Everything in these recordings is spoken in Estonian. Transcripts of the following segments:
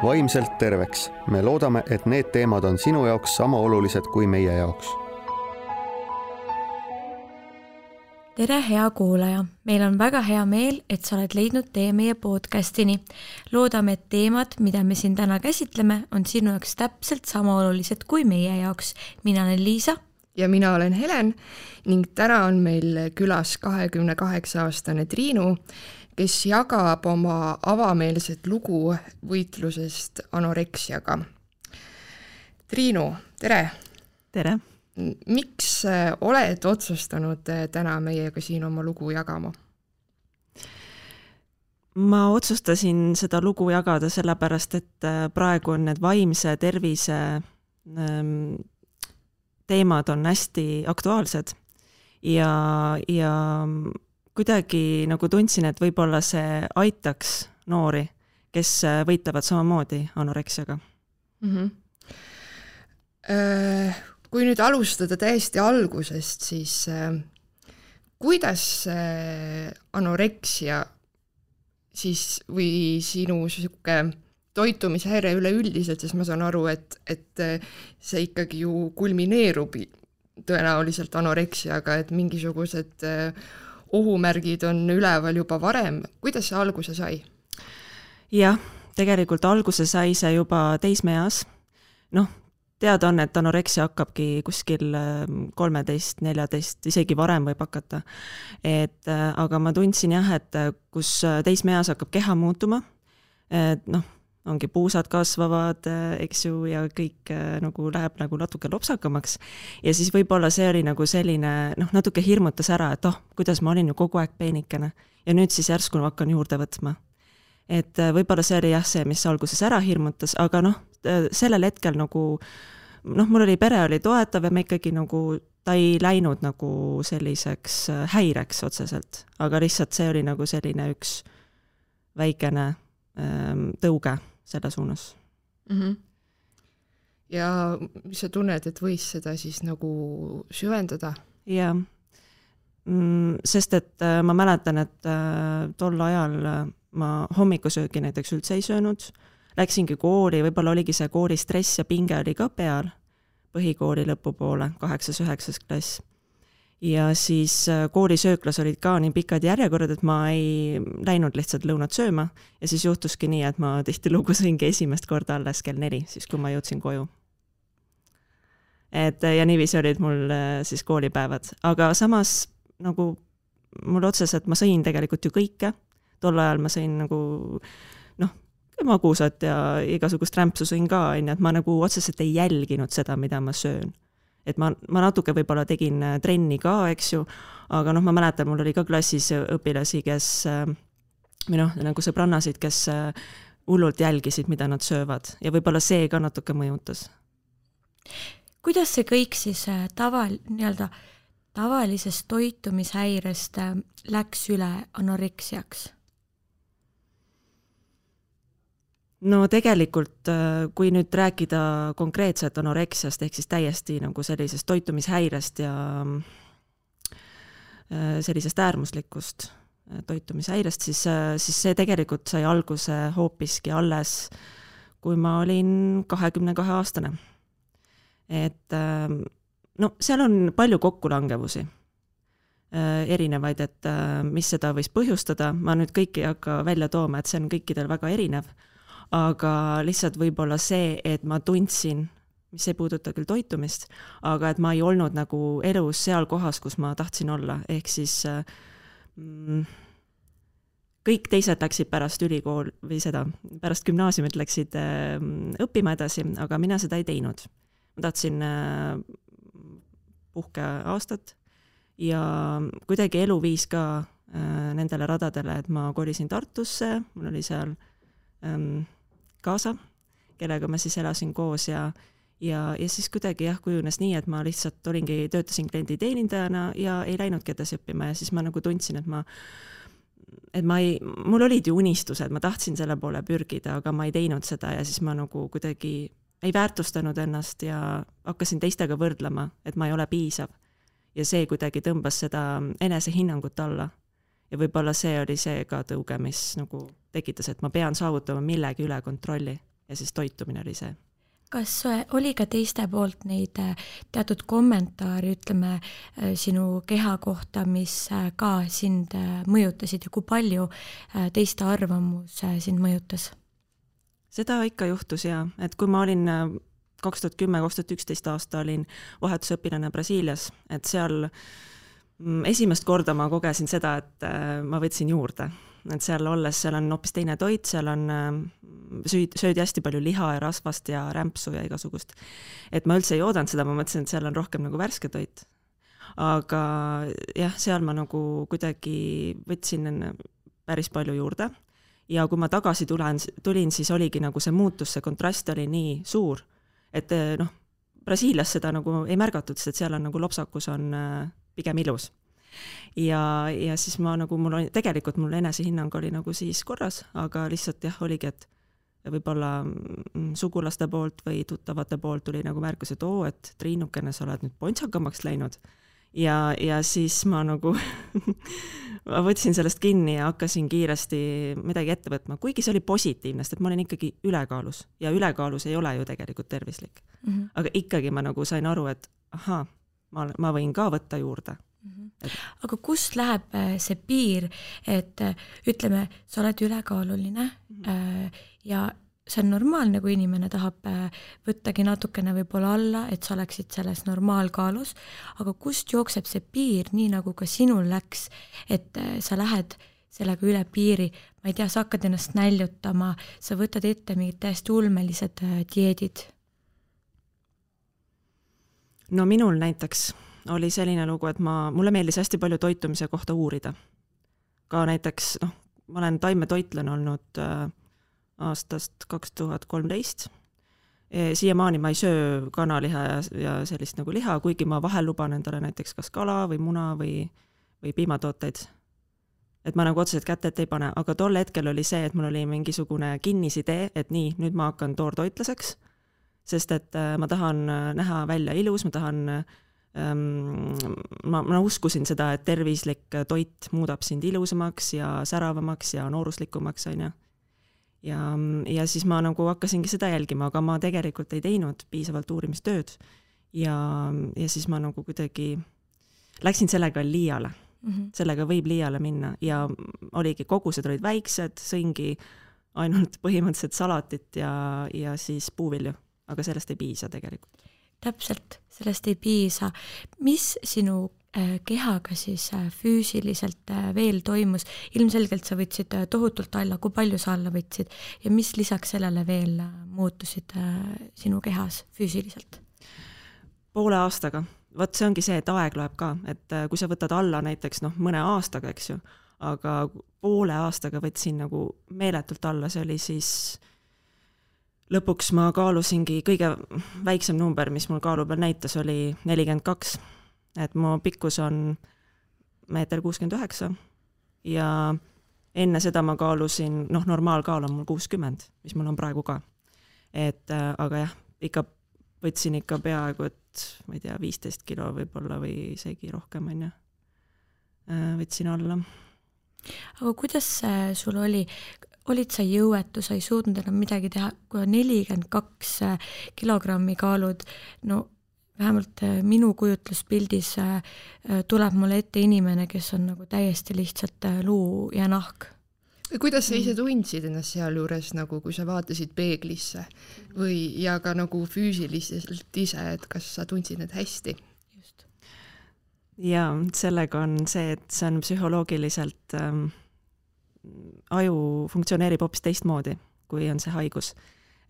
vaimselt terveks. Me loodame, et need teemad on sinu jaoks sama olulised kui meie jaoks. Tere, hea kuulaja! Meil on väga hea meel, et sa oled leidnud tee meie podcastini. Loodame, et teemad, mida me siin täna käsitleme, on sinu jaoks täpselt sama olulised kui meie jaoks. Mina olen Liisa. Ja mina olen Helen ning täna on meil külas 28-aastane Triinu, kes jagab oma avameelset lugu võitlusest anoreksiaga. Triinu, tere! Tere! Miks oled otsustanud täna meiega siin oma lugu jagama? Ma otsustasin seda lugu jagada sellepärast, et praegu on need vaimse tervise teemad on hästi aktuaalsed ja kuidagi nagu tundsin, et võib-olla see aitaks noori, kes võitlevad samamoodi anoreksiaga. Kui nüüd alustada täiesti algusest, siis kuidas anoreksia siis või sinu toitumishäire üleüldiselt, sest ma saan aru, et see ikkagi ju kulmineerub tõenäoliselt anoreksiaga, et mingisugused ohumärgid on üleval juba varem. Kuidas see alguse sai? Jah, tegelikult alguse sai see juba teismeeas. Teada on, et anoreksia hakkabki kuskil 13, 14, isegi varem võib hakata. Aga ma tundsin jah, et kus teismeeas hakkab keha muutuma, ongi puusad kasvavad, eks ju, ja kõik nagu läheb nagu natuke lopsakamaks. Ja siis võib-olla see oli nagu selline, natuke hirmutas ära, et kuidas ma olin ju kogu aeg peenikene. Ja nüüd siis järsku hakkan juurde võtma. Et võib-olla see oli jah see, mis alguses ära hirmutas, aga sellel hetkel nagu, mul oli pere oli toetav ja me ikkagi nagu, ta ei läinud nagu selliseks häireks otseselt, aga lihtsalt see oli nagu selline üks väikene tõuge selle suunas. Ja mis sa tunned, et võis seda siis nagu süvendada? Jah, sest et ma mäletan, et tol ajal ma hommikusöögi näiteks üldse ei söönud, läksingi kooli, võib-olla oligi see kooli stress ja pinge oli ka peal põhikooli lõpupoole, 8-9 klass. Ja siis koolisööklas olid ka nii pikad järjekorrad, et ma ei läinud lihtsalt lõunat sööma ja siis juhtuski nii, et ma tihtilugu sõingi esimest korda alles kell 4, siis kui ma jõudsin koju. Ja niiviisi olid mul siis koolipäevad, aga samas nagu mul otseselt ma sõin tegelikult ju kõike. Tol ajal ma sõin nagu magusat ja igasugust rämpsu sõin ka, et ma nagu otseselt ei jälginud seda, mida ma söön. Et ma natuke võib-olla tegin trenni ka, eks ju, aga ma mäletan, mul oli ka klassis õpilasi, kes nagu sõbrannasid, kes hullult jälgisid, mida nad söövad ja võib-olla see ka natuke mõjutas. Kuidas see kõik siis tavalisest toitumishäirest läks üle anoreksiaks? Tegelikult, kui nüüd rääkida konkreetselt anoreksiast, ehk siis täiesti nagu sellisest toitumishäirest ja sellisest äärmuslikust toitumishäirest, siis see tegelikult sai alguse hoopiski alles, kui ma olin 22-aastane. Seal on palju kokkulangevusi erinevaid, et mis seda võis põhjustada. Ma nüüd kõiki ei hakka välja tooma, et see on kõikidel väga erinev. Aga lihtsalt võib-olla see, et ma tundsin, mis ei puuduta küll toitumist, aga et ma ei olnud nagu elus seal kohas, kus ma tahtsin olla. Ehk siis kõik teised läksid pärast ülikool või seda, pärast gümnaasiumit läksid õppima edasi, aga mina seda ei teinud. Ma tahtsin puhkeaastat ja kuidagi elu viis ka nendele radadele, et ma kolisin Tartusse, mul oli seal kaasa, kellega ma siis elasin koos ja siis kuidagi kujunes nii, et ma lihtsalt töötasin klienditeenindajana ja ei läinudki edasi õppima ja siis ma nagu tundsin, et mul olid ju unistused, ma tahtsin selle poole pürgida, aga ma ei teinud seda ja siis ma nagu kuidagi ei väärtustanud ennast ja hakkasin teistega võrdlema, et ma ei ole piisav. Ja see kuidagi tõmbas seda enesehinnangut alla. Ja võib-olla see oli see ka tõuge, mis nagu tekitas, et ma pean saavutama millegi üle kontrolli, ja siis toitumine oli see. Kas oli ka teiste poolt neid teatud kommentaari, ütleme, sinu keha kohta, mis ka sind mõjutasid ja kui palju teiste arvamus sind mõjutas? Seda ikka juhtus ja, et kui ma olin 2010-2011 aasta olin vahetusõpilane Brasiilias, et seal esimest korda ma kogesin seda, et ma võtsin juurde. Et seal olles, seal on hoopis teine toit, seal on söödi hästi palju liha ja rasvast ja rämpsu ja igasugust. Et ma üldse ei oodanud seda, ma mõtlesin, et seal on rohkem nagu värske toit. Aga jah, seal ma nagu kuidagi võtsin päris palju juurde. Ja kui ma tagasi tulin, siis oligi nagu see muutus, see kontrast oli nii suur, et Brasiilias seda nagu ei märgatud, sest seal on nagu lopsakus on pigem ilus. Ja siis ma nagu, tegelikult mul enesehinnang oli nagu siis korras, aga lihtsalt jah, oligi, et võib-olla sugulaste poolt või tuttavate poolt tuli nagu märkus, et et Triinukene, sa oled nüüd pontsakamaks läinud. Ja siis ma nagu ma võtsin sellest kinni ja hakkasin kiiresti midagi ette võtma, kuigi see oli positiivne, sest et ma olin ikkagi ülekaalus ja ülekaalus ei ole ju tegelikult tervislik. Aga ikkagi ma nagu sain aru, et ma võin ka võtta juurde. Aga kust läheb see piir, et ütleme, sa oled ülekaaluline ja see on normaalne, kui inimene tahab võttagi natukene võib-olla alla, et sa oleksid selles normaalkaalus, aga kust jookseb see piir, nii nagu ka sinul läks, et sa lähed sellega üle piiri, ma ei tea, sa hakkad ennast näljutama, sa võtad ette mingid täiesti ulmelised dieedid? No minul näiteks oli selline lugu, et mulle meeldis hästi palju toitumise kohta uurida. Ka näiteks, ma olen taimetoitlen olnud aastast 2013. Siiamaani ma ei söö kanaliha ja sellist nagu liha, kuigi ma vahel luban endale näiteks kas kala või muna või piimatooteid. Et ma nagu otseselt kätet ei pane, aga tol hetkel oli see, et mul oli mingisugune kinnisidee, et nii, nüüd ma hakkan toortoitlaseks, sest et ma tahan näha välja ilus, ma tahan ma uskusin seda, et tervislik toit muudab sind ilusamaks ja säravamaks ja nooruslikumaks, on ju. Ja siis ma nagu hakkasingi seda jälgima, aga ma tegelikult ei teinud piisavalt uurimistööd ja siis ma nagu kuidagi läksin sellega liiale. Sellega võib liiale minna ja oligi, kogused olid väiksed, sõingi ainult põhimõtteliselt salatit ja siis puuvilju, aga sellest ei piisa tegelikult. Täpselt, sellest ei piisa. Mis sinu kehaga siis füüsiliselt veel toimus? Ilmselgelt sa võtsid tohutult alla, kui palju sa alla võtsid ja mis lisaks sellele veel muutusid sinu kehas füüsiliselt? Poole aastaga. Võt see ongi see, et aeg loeb ka, et kui sa võtad alla näiteks mõne aastaga, eks ju, aga poole aastaga võtsin nagu meeletult alla, see oli siis lõpuks ma kaalusingi, kõige väiksem number, mis mul kaalu peal näitas, oli 42. Et mu pikkus on 1,69 m ja enne seda ma kaalusin, normaalkaal on mul 60, mis mul on praegu ka. Aga jah, ikka võtsin ikka peaaegu, et ma ei tea, 15 kilo võib-olla või isegi rohkem, on ju. Võtsin alla. Aga kuidas sul oli? Olid sa jõuetu, sa ei suutnud enam midagi teha, kui 42 kilogrammi kaalud, vähemalt minu kujutluspildis tuleb mulle ette inimene, kes on nagu täiesti lihtsalt luu ja nahk. Kuidas sa ise tundsid ennast seal juures, nagu kui sa vaatasid peeglisse ja ka nagu füüsiliselt ise, et kas sa tundsid need hästi? Just. Ja sellega on see, et see on psühholoogiliselt aju funktsioneerib hoopis teistmoodi, kui on see haigus.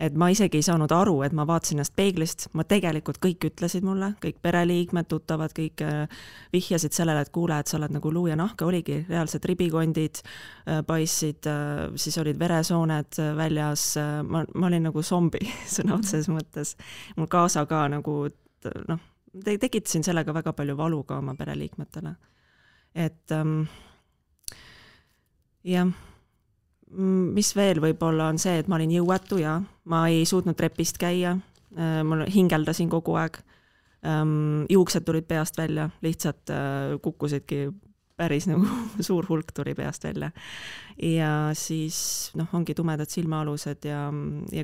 Et ma isegi ei saanud aru, et ma vaatasin ennast peeglist, ma tegelikult kõik ütlesid mulle, kõik pereliikmed, tuttavad, kõik vihjasid sellele, et kuule, et sa oled nagu luu ja nahka, oligi reaalselt ribikondid, paissid, siis olid veresooned väljas, ma olin nagu zombi sõna otseses mõttes. Mul kaasa ka nagu, tekitasin sellega väga palju valu ka oma pereliikmetele. Et jah, mis veel võib-olla on see, et ma olin jõuetu ja ma ei suutnud trepist käia, ma hingeldasin kogu aeg, juuksed tulid peast välja, lihtsalt kukkusidki päris nagu suur hulk tuli peast välja. Ja siis ongi tumedad silmaalused ja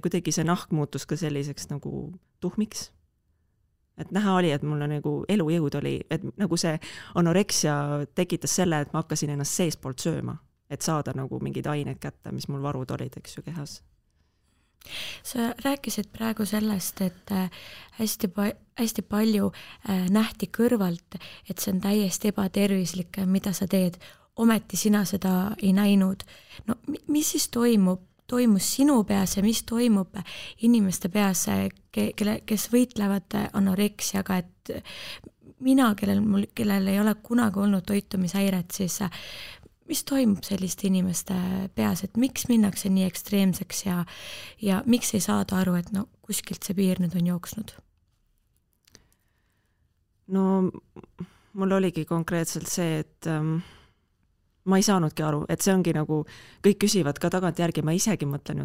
kuidagi see nahk muutus ka selliseks nagu tuhmiks. Et näha oli, et mul nagu elujõud oli, et nagu see anoreksia tekitas selle, et ma hakkasin ennast seespoolt sööma, et saada nagu mingid ained kätte, mis mul varud olid, eks ju, kehas. Sa rääkisid praegu sellest, et hästi palju nähti kõrvalt, et see on täiesti ebatervislik, mida sa teed. Ometi sina seda ei näinud. No mis siis toimus sinu peas ja mis toimub inimeste peas, kes võitlevad anoreksiaga, et mina, kellel ei ole kunagi olnud toitumishäiret, siis mis toimub selliste inimeste peas, et miks minnakse nii ekstreemseks ja miks ei saada aru, et kuskilt see piir nüüd on jooksnud? No mul oligi konkreetselt see, et ma ei saanudki aru, et see ongi nagu, kõik küsivad ka tagantjärgi, ma isegi mõtlen,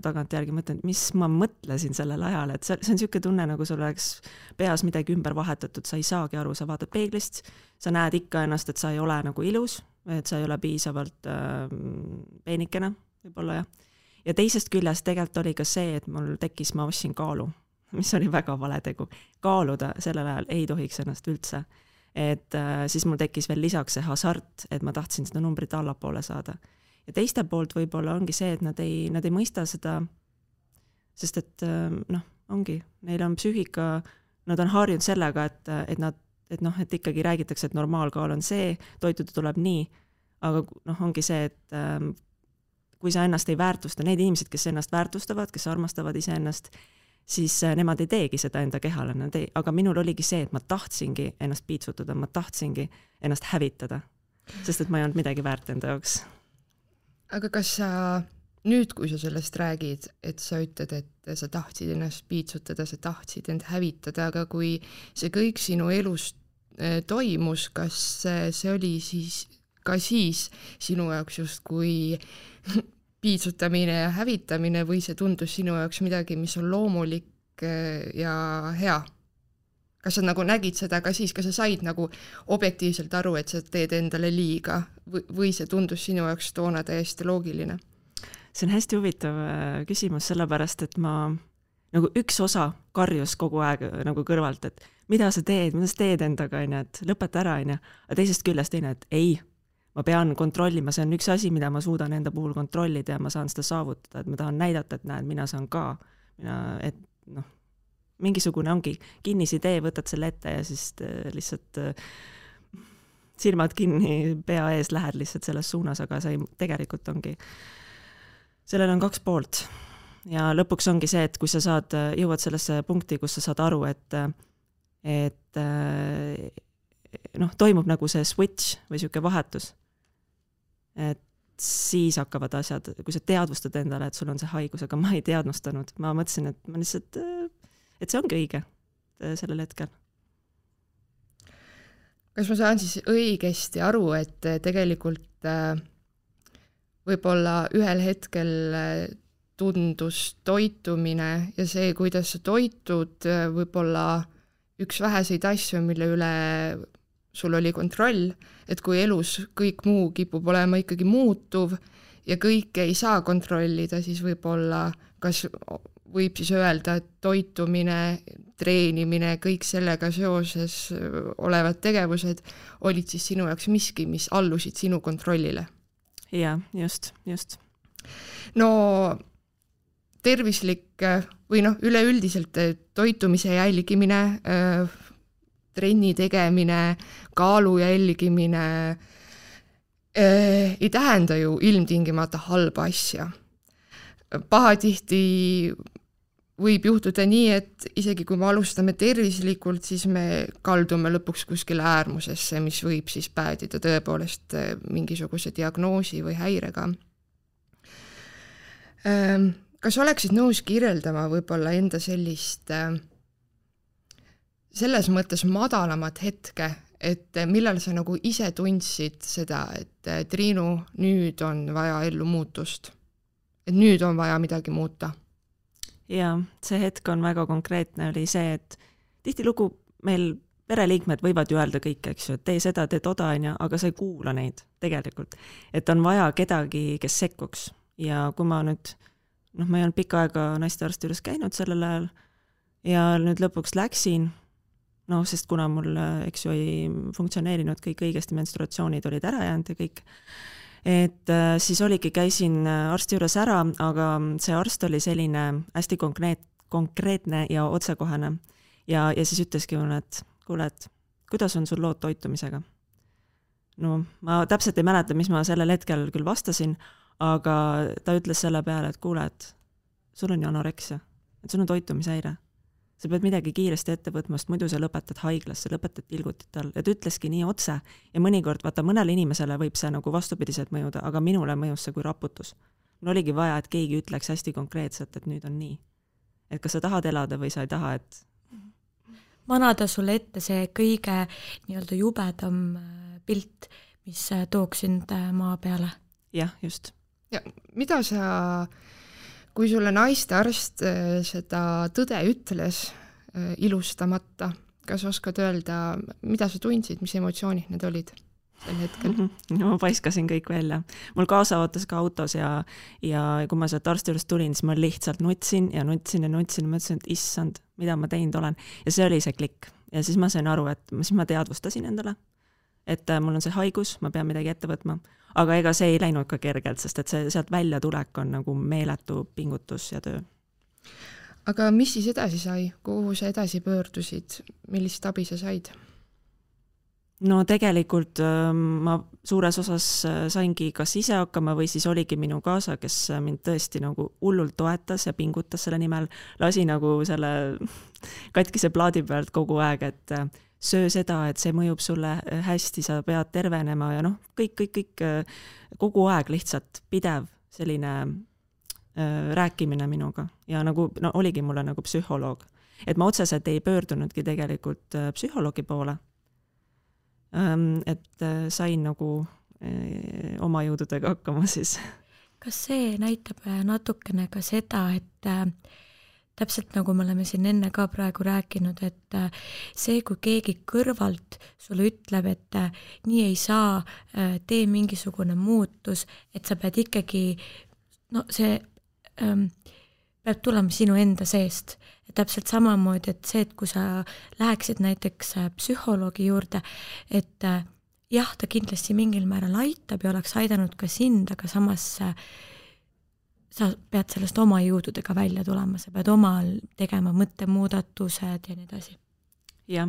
mis ma mõtlesin sellel ajal, et see on niisugune tunne, nagu sul oleks peas midagi ümber vahetatud, sa ei saagi aru, sa vaatad peeglist, sa näed ikka ennast, et sa ei ole nagu ilus, et sa ei ole piisavalt peenikene, võib-olla jah. Ja teisest küljest tegelikult oli ka see, et mul tekkis, ma ostsin kaalu, mis oli väga vale tegu. Kaaluda sellel ajal ei tohiks ennast üldse. Et siis mul tekkis veel lisaks see hasart, et ma tahtsin seda numbrit allapoole saada. Ja teiste poolt võib-olla ongi see, et nad ei mõista seda, sest et ongi, neil on psüühika, nad on harjunud sellega, et ikkagi räägitakse, et normaalkaal on see, toituda tuleb nii, aga ongi see, et kui sa ennast ei väärtusta, need inimesed, kes ennast väärtustavad, kes armastavad iseennast, siis nemad ei teegi seda enda kehale, aga minul oligi see, et ma tahtsingi ennast piitsutada, ma tahtsingi ennast hävitada, sest et ma ei olnud midagi väärt enda jaoks. Aga kas sa nüüd, kui sa sellest räägid, et sa ütled, et sa tahtsid ennast piitsutada, sa tahtsid end hävitada, aga kui see kõik sinu elus toimus, kas see oli siis ka siis sinu jaoks justkui piitsutamine ja hävitamine või see tundus sinu jaoks midagi, mis on loomulik ja hea? Kas sa nagu nägid seda ka siis, kas sa said nagu objektiivselt aru, et sa teed endale liiga või see tundus sinu jaoks toona täiesti loogiline? See on hästi huvitav küsimus, sellepärast, et ma nagu üks osa karjus kogu aeg nagu kõrvalt, et mida sa teed endaga, et lõpeta ära, aga teisest küljest teine, et ei, ma pean kontrollima, see on üks asi, mida ma suudan enda puhul kontrollida ja ma saan seda saavutada, et ma tahan näidata, et näed, mina saan ka, et mingisugune ongi kinnisidee, võtad selle ette ja siis lihtsalt silmad kinni pea ees lähed lihtsalt selles suunas, aga see tegelikult ongi, sellel on 2 poolt ja lõpuks ongi see, et kui sa jõuad sellesse punkti, kus sa saad aru, et toimub nagu see switch või siuke vahetus, et siis hakkavad asjad, kui sa teadvustad endale, et sul on see haigus, aga ma ei teadvustanud, ma mõtlesin, et ma lihtsalt, et see ongi õige sellel hetkel. Kas ma saan siis õigesti aru, et tegelikult võib-olla ühel hetkel tundus toitumine ja see, kuidas sa toitud, võib-olla üks väheseid asju, mille üle sul oli kontroll, et kui elus kõik muu kipub olema ikkagi muutuv ja kõike ei saa kontrollida, siis võib-olla kas võib siis öelda, et toitumine, treenimine, kõik sellega seoses olevad tegevused olid siis sinu jaoks miski, mis allusid sinu kontrollile? Jaa, just. No tervislik või üleüldiselt toitumise jälgimine, trenni tegemine, kaalu jälgimine ei tähenda ju ilmtingimata halba asja. Pahatihti võib juhtuda nii, et isegi kui me alustame tervislikult, siis me kaldume lõpuks kuskile äärmusesse, mis võib siis päädida tõepoolest mingisuguse diagnoosi või häirega. Kas oleksid nõus kirjeldama võib-olla enda sellist selles mõttes madalamat hetke, et millal sa nagu ise tundsid seda, et Triinu, nüüd on vaja ellu muutust, et nüüd on vaja midagi muuta? Jaa, see hetk on väga konkreetne, oli see, et tihtilugu meil pereliikmed võivad ju öelda kõik, eks ju, et tee seda, tee toda, aga sa ei kuula neid tegelikult. Et on vaja kedagi, kes sekkuks. Ja kui ma nüüd, ma ei olnud pikka aega naistearsti juures käinud sellel ajal ja nüüd lõpuks läksin, sest kuna mul, eks ju, ei funktsioneerinud kõik õigesti, menstruatsioonid olid ära jäänud ja kõik, et siis oligi, käisin arsti juures ära, aga see arst oli selline hästi konkreetne ja otsekohane ja siis ütleski mulle, et kuule, et kuidas on sul lood toitumisega? Ma täpselt ei mäleta, mis ma sellel hetkel küll vastasin, aga ta ütles selle peale, et kuule, et sul on ju anoreksia, et sul on toitumishäire. Sa pead midagi kiiresti ette võtma, sest muidu sa lõpetad haiglasse, lõpetad tilgutit all. Et ütleski nii otse ja mõnikord, vaata, mõnele inimesele võib see nagu vastupidiselt mõjuda, aga minule mõjus see kui raputus. Mul oligi vaja, et keegi ütleks hästi konkreetselt, et nüüd on nii. Et kas sa tahad elada või sa ei taha, et manada sulle ette see kõige nii-öelda jubedam pilt, mis tooks sind maa peale. Jah, just. Ja mida sa, kui sulle naistearst seda tõde ütles ilustamata, kas oskad öelda, mida sa tundsid, mis emotsioonid need olid sel hetkel? Ma paiskasin kõik välja. Mul kaasa ootas ka autos ja kui ma sealt arsti juures tulin, siis ma lihtsalt nutsin ja mõtlesin, et issand, mida ma teinud olen. Ja see oli see klikk. Ja siis ma sain aru, et siis ma teadvustasin endale, et mul on see haigus, ma pean midagi ette võtma. Aga ega see ei läinud ka kergelt, sest et see sealt välja tulek on nagu meeletu pingutus ja töö. Aga mis siis edasi sai? Kuhu sa edasi pöördusid? Millist abi sa said? No tegelikult ma suures osas saingi kas ise hakkama või siis oligi minu kaasa, kes mind tõesti nagu hullult toetas ja pingutas selle nimel, lasi nagu selle katkise plaadi pealt kogu aeg, et söö seda, et see mõjub sulle hästi, sa pead tervenema ja kõik kogu aeg lihtsalt pidev selline rääkimine minuga ja nagu oligi mulle nagu psühholoog, et ma otseselt ei pöördunudki tegelikult psühholoogi poole. Et sain nagu oma jõududega hakkama siis. Kas see näitab natukene ka seda, et täpselt nagu me oleme siin enne ka praegu rääkinud, et see, kui keegi kõrvalt sulle ütleb, et nii ei saa, tee mingisugune muutus, et sa pead ikkagi, see peab tulema sinu enda seest. Ja täpselt samamoodi, et see, et kui sa läheksid näiteks psühholoogi juurde, et jah, ta kindlasti mingil määral aitab ja oleks aidanud ka sind, aga samas sa pead sellest oma jõududega välja tulema, sa pead omal tegema mõttemuudatused ja nii edasi. Jah,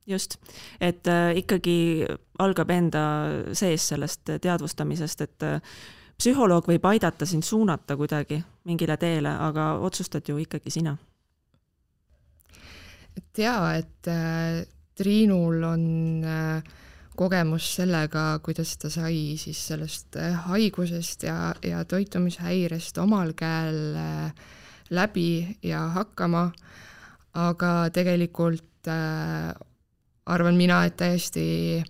just. Et ikkagi algab enda sees sellest teadvustamisest, et psühholoog võib aidata sind suunata kuidagi mingile teele, aga otsustad ju ikkagi sina. Et Triinul on kogemus sellega, kuidas ta sai siis sellest haigusest ja toitumishäirest omal käel läbi ja hakkama, aga tegelikult arvan mina, et täiesti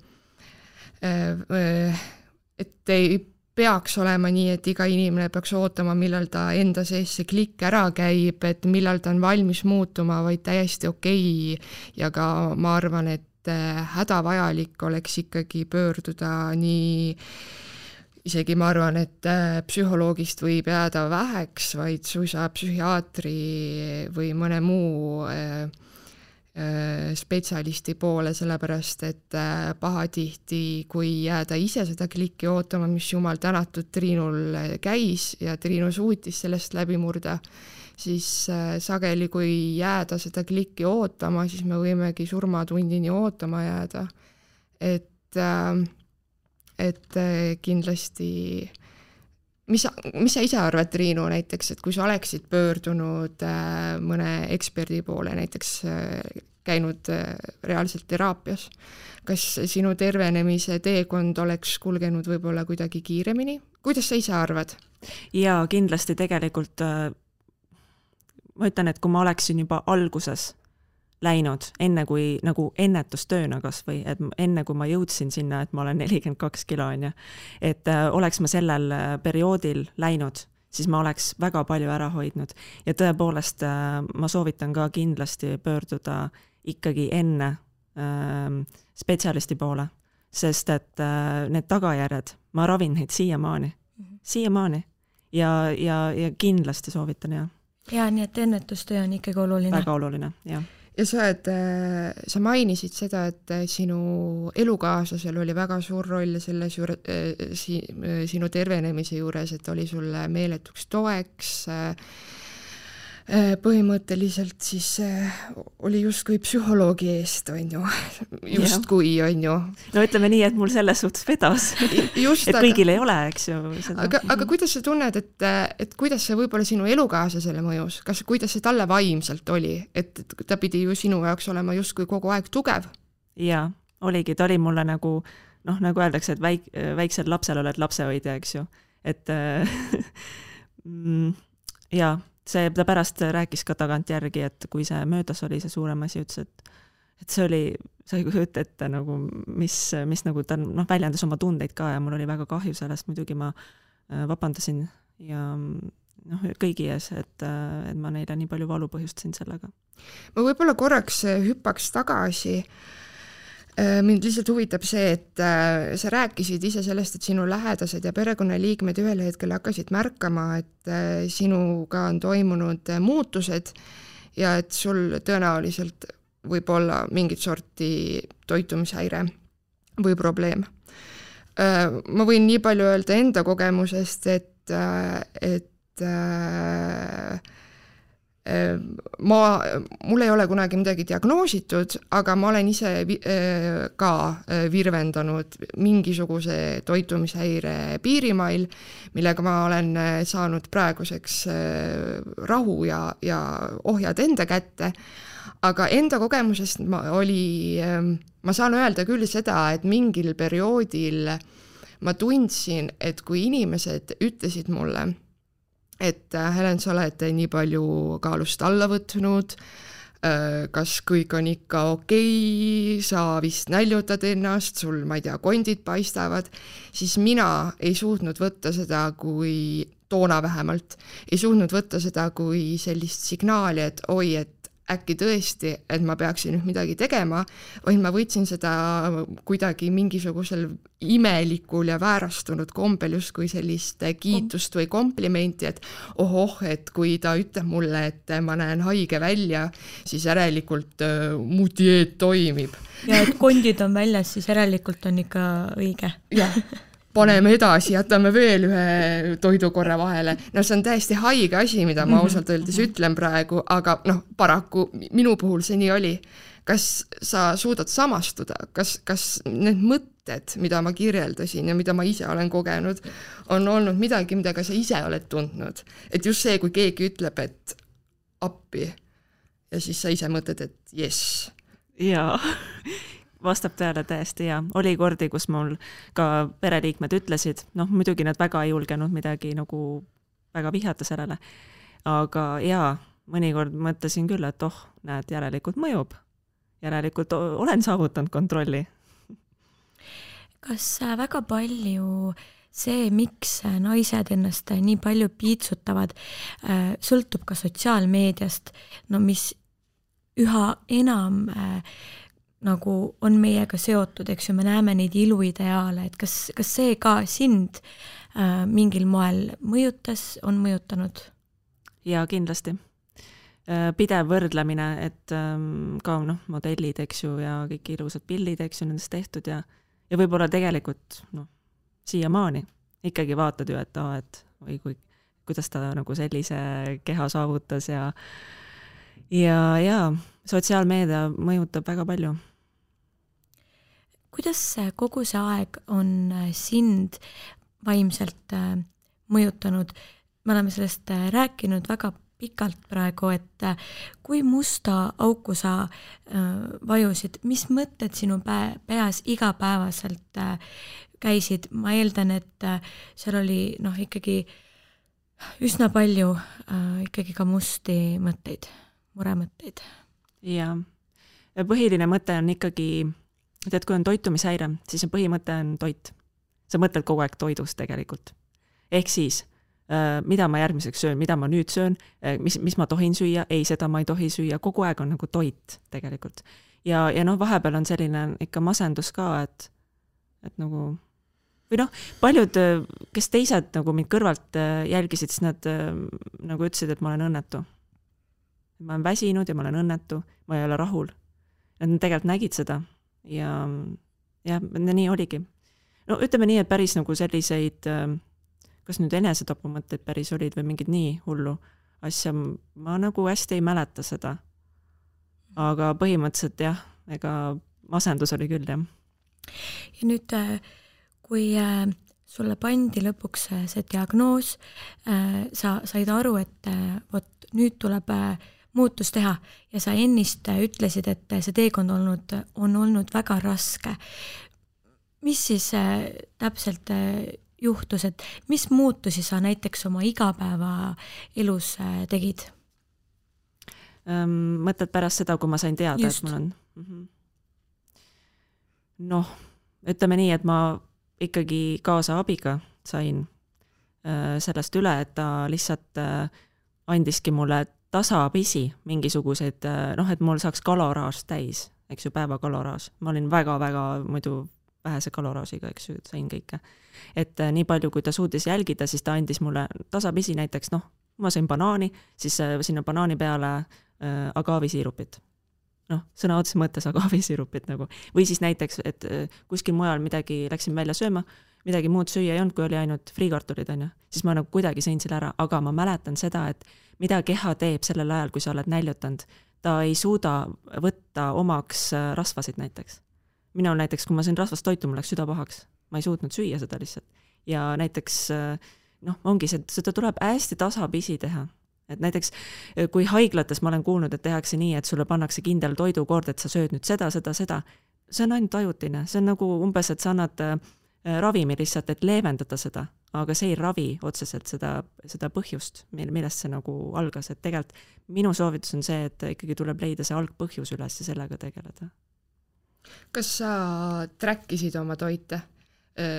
et ei peaks olema nii, et iga inimene peaks ootama, millal ta enda sees see klikk ära käib, et millal ta on valmis muutuma, vaid täiesti okei. Ja ka ma arvan, et hädavajalik oleks ikkagi pöörduda nii, isegi ma arvan, et psühholoogist võib jääda väheks, vaid suisa psühhiaatri või mõne muu spetsialisti poole, sellepärast, et pahatihti, kui jääda ise seda klikki ootama, mis jumal tänatud Triinul käis ja Triinu suutis sellest läbi murda, siis sageli, kui jääda seda klikki ootama, siis me võimegi surmatundini ootama jääda. Et kindlasti mis sa ise arvad, Triinu, näiteks, et kui sa oleksid pöördunud mõne eksperdi poole, näiteks käinud reaalselt teraapias, kas sinu tervenemise teekond oleks kulgenud võib-olla kuidagi kiiremini? Kuidas sa ise arvad? Jaa, kindlasti tegelikult ma ütlen, et kui ma oleksin juba alguses läinud, enne kui nagu ennetustööna kas või, et enne kui ma jõudsin sinna, et ma olen 42 kilo, et oleks ma sellel perioodil läinud, siis ma oleks väga palju ära hoidnud. Ja tõepoolest ma soovitan ka kindlasti pöörduda ikkagi enne spetsialisti poole, sest et need tagajärjed, ma ravin neid siiamaani ja kindlasti soovitan, jah. Ja nii, et ennetustöö on ikkagi oluline. Väga oluline, jah. Ja sa mainisid seda, et sinu elukaaslasel oli väga suur roll selles sinu tervenemise juures, et oli sulle meeletuks toeks, põhimõtteliselt siis oli justkui psühholoogi eest, on ju, justkui, on ju. No ütleme nii, et mul selles suhtes vedas, et kõigil ei ole, eks ju. Aga kuidas sa tunned, et kuidas see võib-olla sinu elukaaslasele mõjus, kuidas see talle vaimselt oli, et ta pidi ju sinu jaoks olema justkui kogu aeg tugev? Jaa, oligi, ta oli mulle nagu öeldakse, et väiksel lapsel oled lapsehoidja, eks ju, et jaa, ta pärast rääkis ka tagantjärgi, et kui see möödas oli see suurem asi, ütles, et see oli, sa ei kujuta ette nagu, mis nagu ta väljendas oma tundeid ka ja mul oli väga kahju sellest, muidugi ma vabandasin ja kõigi ees, et ma neile nii palju valu põhjustasin sellega. Ma võib-olla korraks hüppaks tagasi. Mind lihtsalt huvitab see, et sa rääkisid ise sellest, et sinu lähedased ja perekonnaliikmed ühel hetkel hakkasid märkama, et sinuga on toimunud muutused ja et sul tõenäoliselt võib olla mingit sorti toitumishäire või probleem. Ma võin nii palju öelda enda kogemusest, et mul ei ole kunagi midagi diagnoositud, aga ma olen ise ka virvendanud mingisuguse toitumishäire piirimail, millega ma olen saanud praeguseks rahu ja ohjad enda kätte. Aga enda kogemusest ma saan öelda küll seda, et mingil perioodil ma tundsin, et kui inimesed ütlesid mulle, et Helen, sa oled nii palju kaalust alla võtnud, kas kõik on ikka okei, sa vist näljutad ennast, sul, ma ei tea, kondid paistavad, siis mina ei suutnud võtta seda kui, toona vähemalt, ei suutnud võtta seda kui sellist signaali, et oi, et äkki tõesti, et ma peaksin nüüd midagi tegema, vaid ma võtsin seda kuidagi mingisugusel imelikul ja väärastunud kombel justkui sellist kiitust või komplimenti, et et kui ta ütleb mulle, et ma näen haige välja, siis järelikult mu dieet toimib. Ja et kondid on väljas, siis järelikult on ikka õige. Jah. Paneme edasi, jätame veel ühe toidukorra vahele. No see on täiesti haige asi, mida ma ausalt öeldes ütlen praegu, aga paraku minu puhul see nii oli. Kas sa suudad samastuda? Kas need mõtted, mida ma kirjeldasin ja mida ma ise olen kogenud, on olnud midagi, mida ka sa ise oled tundnud? Et just see, kui keegi ütleb, et appi ja siis sa ise mõtled, et yes. Jaa. Vastab tõele täiesti, ja oli kordi, kus mul ka pereliikmed ütlesid, muidugi nad väga ei julgenud midagi nagu väga vihata sellele, aga jaa, mõnikord mõtlesin küll, et näed, järelikult mõjub, järelikult olen saavutanud kontrolli. Kas väga palju see, miks naised ennast nii palju piitsutavad, sõltub ka sotsiaalmeediast, mis üha enam nagu on meiega seotud, eks ju, me näeme neid iluideaale, et kas see ka sind mingil moel mõjutas, on mõjutanud? Jaa, kindlasti. Pidev võrdlemine, et ka modellid, eks ju, ja kõik ilusad pildid, eks ju, nendest tehtud ja võib-olla tegelikult siiamaani ikkagi vaatad ju, et kuidas ta nagu sellise keha saavutas ja sotsiaalmeedia mõjutab väga palju. Kuidas kogu see aeg on sind vaimselt mõjutanud? Me oleme sellest rääkinud väga pikalt praegu, et kui musta auku sa vajusid, mis mõtted sinu peas igapäevaselt käisid? Ma eeldan, et seal oli ikkagi üsna palju ikkagi ka musti mõtteid, muremõtteid. Jaa. Põhiline mõte on ikkagi, et kui on toitumishäire, siis põhimõte on toit. Sa mõtled kogu aeg toidust tegelikult. Ehk siis mida ma järgmiseks söön, mida ma nüüd söön, mis ma tohin süüa, ei, seda ma ei tohi süüa, kogu aeg on nagu toit tegelikult. Ja vahepeal on selline ikka masendus ka, et nagu, või paljud, kes teised nagu mind kõrvalt jälgisid, siis nad nagu ütlesid, et ma olen õnnetu. Ma olen väsinud ja ma olen õnnetu, ma ei ole rahul. Nad tegelikult nägid seda ja nii oligi. Ütleme nii, et päris nagu selliseid, kas nüüd enesetapumõtteid päris olid või mingid nii hullu asja, ma nagu hästi ei mäleta seda. Aga põhimõtteliselt jah, ega masendus oli küll, jah. Ja nüüd, kui sulle pandi lõpuks see diagnoos, sa said aru, et vot nüüd tuleb muutus teha ja sa ennist ütlesid, et see teekond on olnud väga raske. Mis siis täpselt juhtus, et mis muutusi sa näiteks oma igapäeva elus tegid? Mõtled pärast seda, kui ma sain teada, just. Et mul on... ütleme nii, et ma ikkagi kaasa abiga sain sellest üle, et ta lihtsalt andiski mulle tasapisi mingisuguseid, et mul saaks kaloraaž täis, eks ju, päeva kaloraaž. Ma olin väga-väga muidu vähese kaloraažiga, eks ju, sain kõike. Et nii palju, kui ta suutis jälgida, siis ta andis mulle tasapisi näiteks, ma sain banaani, siis sinna banaani peale agaavisiirupit. Sõna otses mõttes agaavisiirupit nagu. Või siis näiteks, et kuskil mujal midagi läksin välja sööma, midagi muud süüa ei olnud, kui oli ainult friikartulid, siis ma nagu kuidagi sõin selle ära, aga ma mäletan seda, et mida keha teeb sellel ajal, kui sa oled näljutanud, ta ei suuda võtta omaks rasvasid näiteks. Minul näiteks, kui ma sõin rasvast toitu, mul läks süda pahaks. Ma ei suutnud süüa seda lihtsalt. Ja näiteks, ongi see, seda tuleb hästi tasapisi teha. Et näiteks, kui haiglates ma olen kuulnud, et tehakse nii, et sulle pannakse kindel toidukord, et sa sööd nüüd seda, see on ainult ajutine. See on nagu umbes, et sa annad ravimi lihtsalt, et leevendada seda, aga see ei ravi otseselt seda põhjust, millest see nagu algas. Et tegelikult minu soovitus on see, et ikkagi tuleb leida see algpõhjus üles ja sellega tegeleda. Kas sa trackisid oma toite?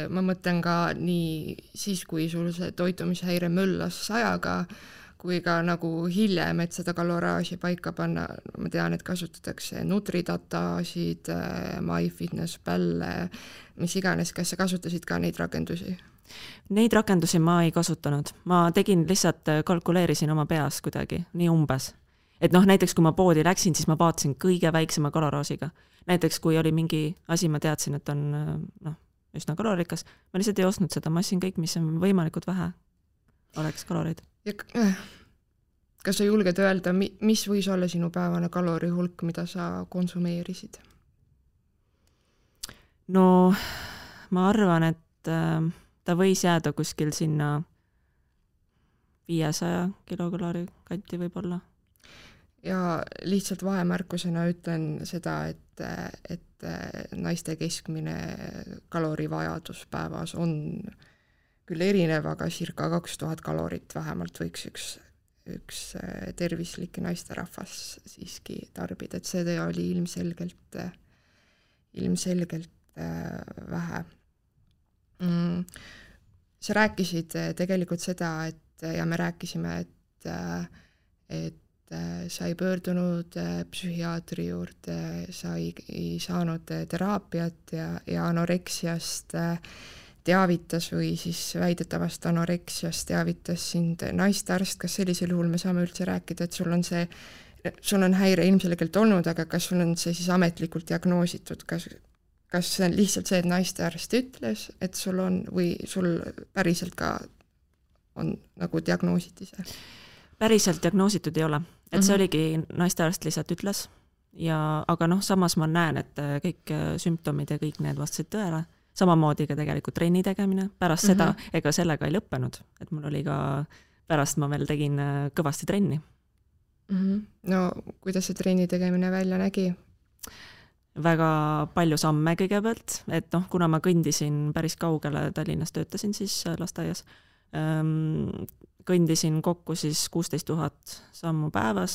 Ma mõtlen ka nii siis, kui sul see toitumishäire möllas 100-ga, kui ka nagu hiljem, et seda kaloraaži paika panna. Ma tean, et kasutatakse Nutridatasid, MyFitnessPal, mis iganes. Kas sa kasutasid ka neid rakendusi? Neid rakendusi ma ei kasutanud. Ma tegin lihtsalt, kalkuleerisin oma peas kuidagi, nii umbes. Et näiteks kui ma poodi läksin, siis ma vaatasin kõige väiksema kaloraažiga. Näiteks kui oli mingi asi, ma teadsin, et on üsna kalorikas, ma lihtsalt ei ostnud seda, ma ostsin kõik, mis on võimalikult vähe oleks kaloreid. Ja kas sa julged öelda, mis võis olla sinu päevane kalorihulk, mida sa konsumeerisid? Ma arvan, et ta võis jääda kuskil sinna 500 kilokaloori kanti võib-olla. Ja lihtsalt vahemärkusena ütlen seda, et naiste keskmine kalorivajadus päevas on küll erinev, aga circa 2000 kalorit vähemalt võiks üks tervislik naisterahvas siiski tarbida, et see oli ilmselgelt vähe. Sa rääkisid tegelikult seda, ja me rääkisime, et sa ei pöördunud psühhiaatri juurde, sa ei saanud teraapiat ja anoreksiast teavitas või siis väidetavast anoreksiast teavitas sind naistearst. Kas sellisel juhul me saame üldse rääkida, et sul on häire ilmselgelt olnud, aga kas sul on see siis ametlikult diagnoositud? Kas see on lihtsalt see, et naistearst ütles, et sul on või sul päriselt ka on nagu diagnoositi see? Päriselt diagnoositud ei ole. Et see oligi naistearst lihtsalt ütles. Aga samas ma näen, et kõik sümptomid ja kõik need vastasid tõele. Samamoodi ka tegelikult trenni tegemine. Pärast seda, ega sellega ei lõppenud. Et mul oli ka, pärast ma veel tegin kõvasti trenni. No, kuidas see trenni tegemine välja nägi? Väga palju samme kõigepealt. Et kuna ma kõndisin päris kaugele, Tallinnas töötasin siis lasteaias, kõndisin kokku siis 16 000 sammu päevas.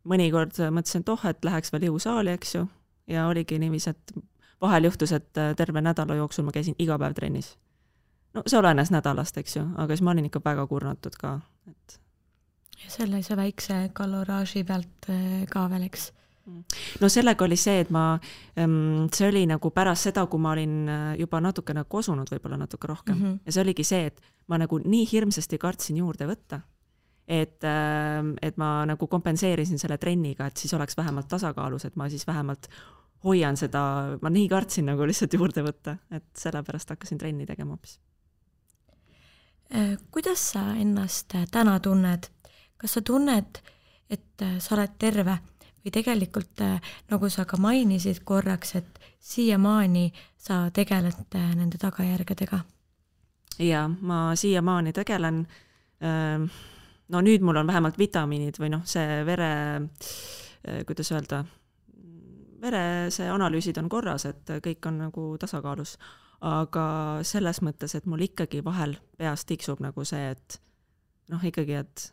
Mõnikord mõtlesin, et läheks veel jõusaali, eks ju. Ja oligi niiviisi, et vahel juhtus, et terve nädala jooksul ma käisin iga päev trennis. no see olenes nädalast, eks ju, aga siis ma olin ikka väga kurnatud ka, et ja sellise väikse kaloraaži pealt ka veel, eks? No sellega oli see, et see oli nagu pärast seda, kui ma olin juba natukene kosunud, võib-olla natuke rohkem. Ja see oligi see, et ma nagu nii hirmsasti kartsin juurde võtta, et ma nagu kompenseerisin selle trenniga, et siis oleks vähemalt tasakaalus, et ma siis vähemalt hoian seda, ma nii kartsin nagu lihtsalt juurde võtta, et sellepärast hakkasin trenni tegema hoopis. Kuidas sa ennast täna tunned? Kas sa tunned, et sa oled terve või tegelikult, nagu sa ka mainisid korraks, et siiamaani sa tegeled nende tagajärgedega? Ja, ma siiamaani tegelen. No nüüd mul on vähemalt vitamiinid või see kuidas öelda, see analüüsid on korras, et kõik on nagu tasakaalus. Aga selles mõttes, et mul ikkagi vahel peas tiksub nagu see, et ikkagi, et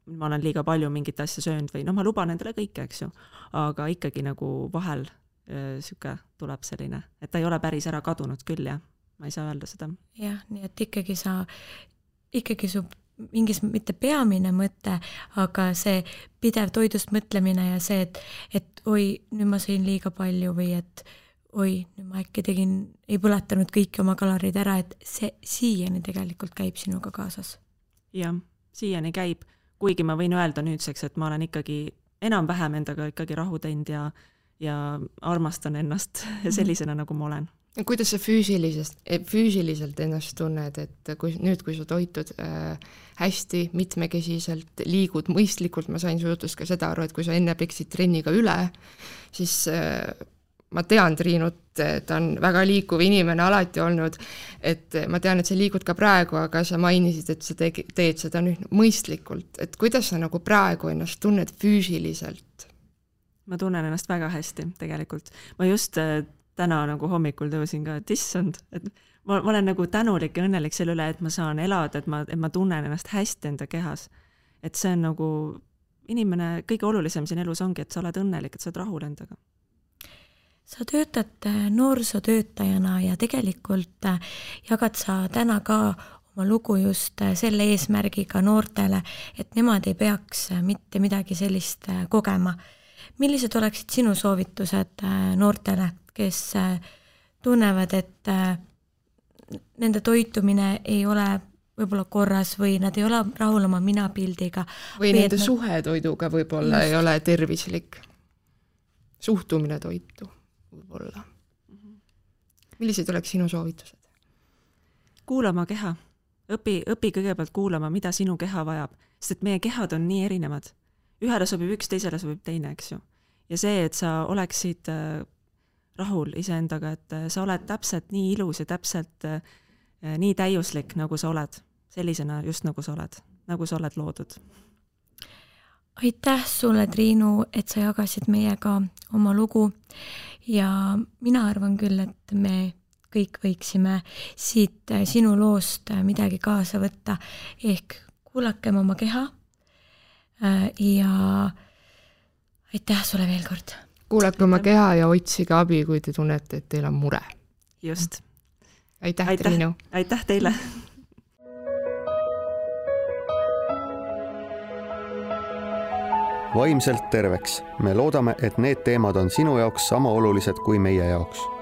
ma olen liiga palju mingit asja söönud või ma luban endale kõike, eks ju, aga ikkagi nagu vahel süke tuleb selline, et ta ei ole päris ära kadunud küll, jah, ma ei saa öelda seda. Jah, nii et ikkagi su mingis mitte peamine mõte, aga see pidev toidust mõtlemine ja see, et oi, nüüd ma sõin liiga palju või et oi, nüüd ma äkki ei põletanud kõiki oma kalorid ära, et see siiani tegelikult käib sinuga kaasas. Jah, siiani käib. Kuigi ma võin öelda nüüdseks, et ma olen ikkagi enam-vähem endaga ikkagi rahu teinud ja armastan ennast sellisena, nagu ma olen. Kuidas sa füüsiliselt ennast tunned, et kui sa toitud hästi, mitmekesiselt, liigud mõistlikult, ma sain su jutust ka seda aru, et kui sa enne peksid trenniga üle, siis ma tean Triinut, ta on väga liikuv inimene alati olnud, et ma tean, et sa liigud ka praegu, aga sa mainisid, et sa teed seda nüüd mõistlikult, et kuidas sa nagu praegu ennast tunned füüsiliselt? Ma tunnen ennast väga hästi tegelikult. Ma just täna nagu hommikul tõusin ka, et issand, et ma olen nagu tänulik ja õnnelik selle üle, et ma saan elada, et ma tunnen ennast hästi enda kehas. Et see on nagu inimene, kõige olulisem siin elus ongi, et sa oled õnnelik, et sa oled rahul endaga. Sa töötad noorsootöötajana ja tegelikult jagad sa täna ka oma lugu just selle eesmärgiga noortele, et nemad ei peaks mitte midagi sellist kogema. Millised oleksid sinu soovitused noortele, kes tunnevad, et nende toitumine ei ole võib-olla korras või nad ei ole rahul oma minapildiga? Või nende suhe toiduga võib-olla ei ole tervislik. Suhtumine toitu võib-olla. Millised oleks sinu soovitused? Kuulama keha. Õpi kõigepealt kuulama, mida sinu keha vajab, sest et meie kehad on nii erinevad. Ühele sobib üks, teisele sobib teine, eks ju. Ja see, et sa oleksid rahul iseendaga, et sa oled täpselt nii ilus ja täpselt nii täiuslik, nagu sa oled. Sellisena just nagu sa oled loodud. Aitäh sulle, Triinu, et sa jagasid meiega oma lugu ja mina arvan küll, et me kõik võiksime siit sinu loost midagi kaasa võtta, ehk kuulakem oma keha ja aitäh sulle veel kord. Kuulake oma keha ja otsige abi, kui te tunnete, et teil on mure. Just. Aitäh. Triinu. Aitäh teile. Vaimselt terveks. Me loodame, et need teemad on sinu jaoks sama olulised kui meie jaoks.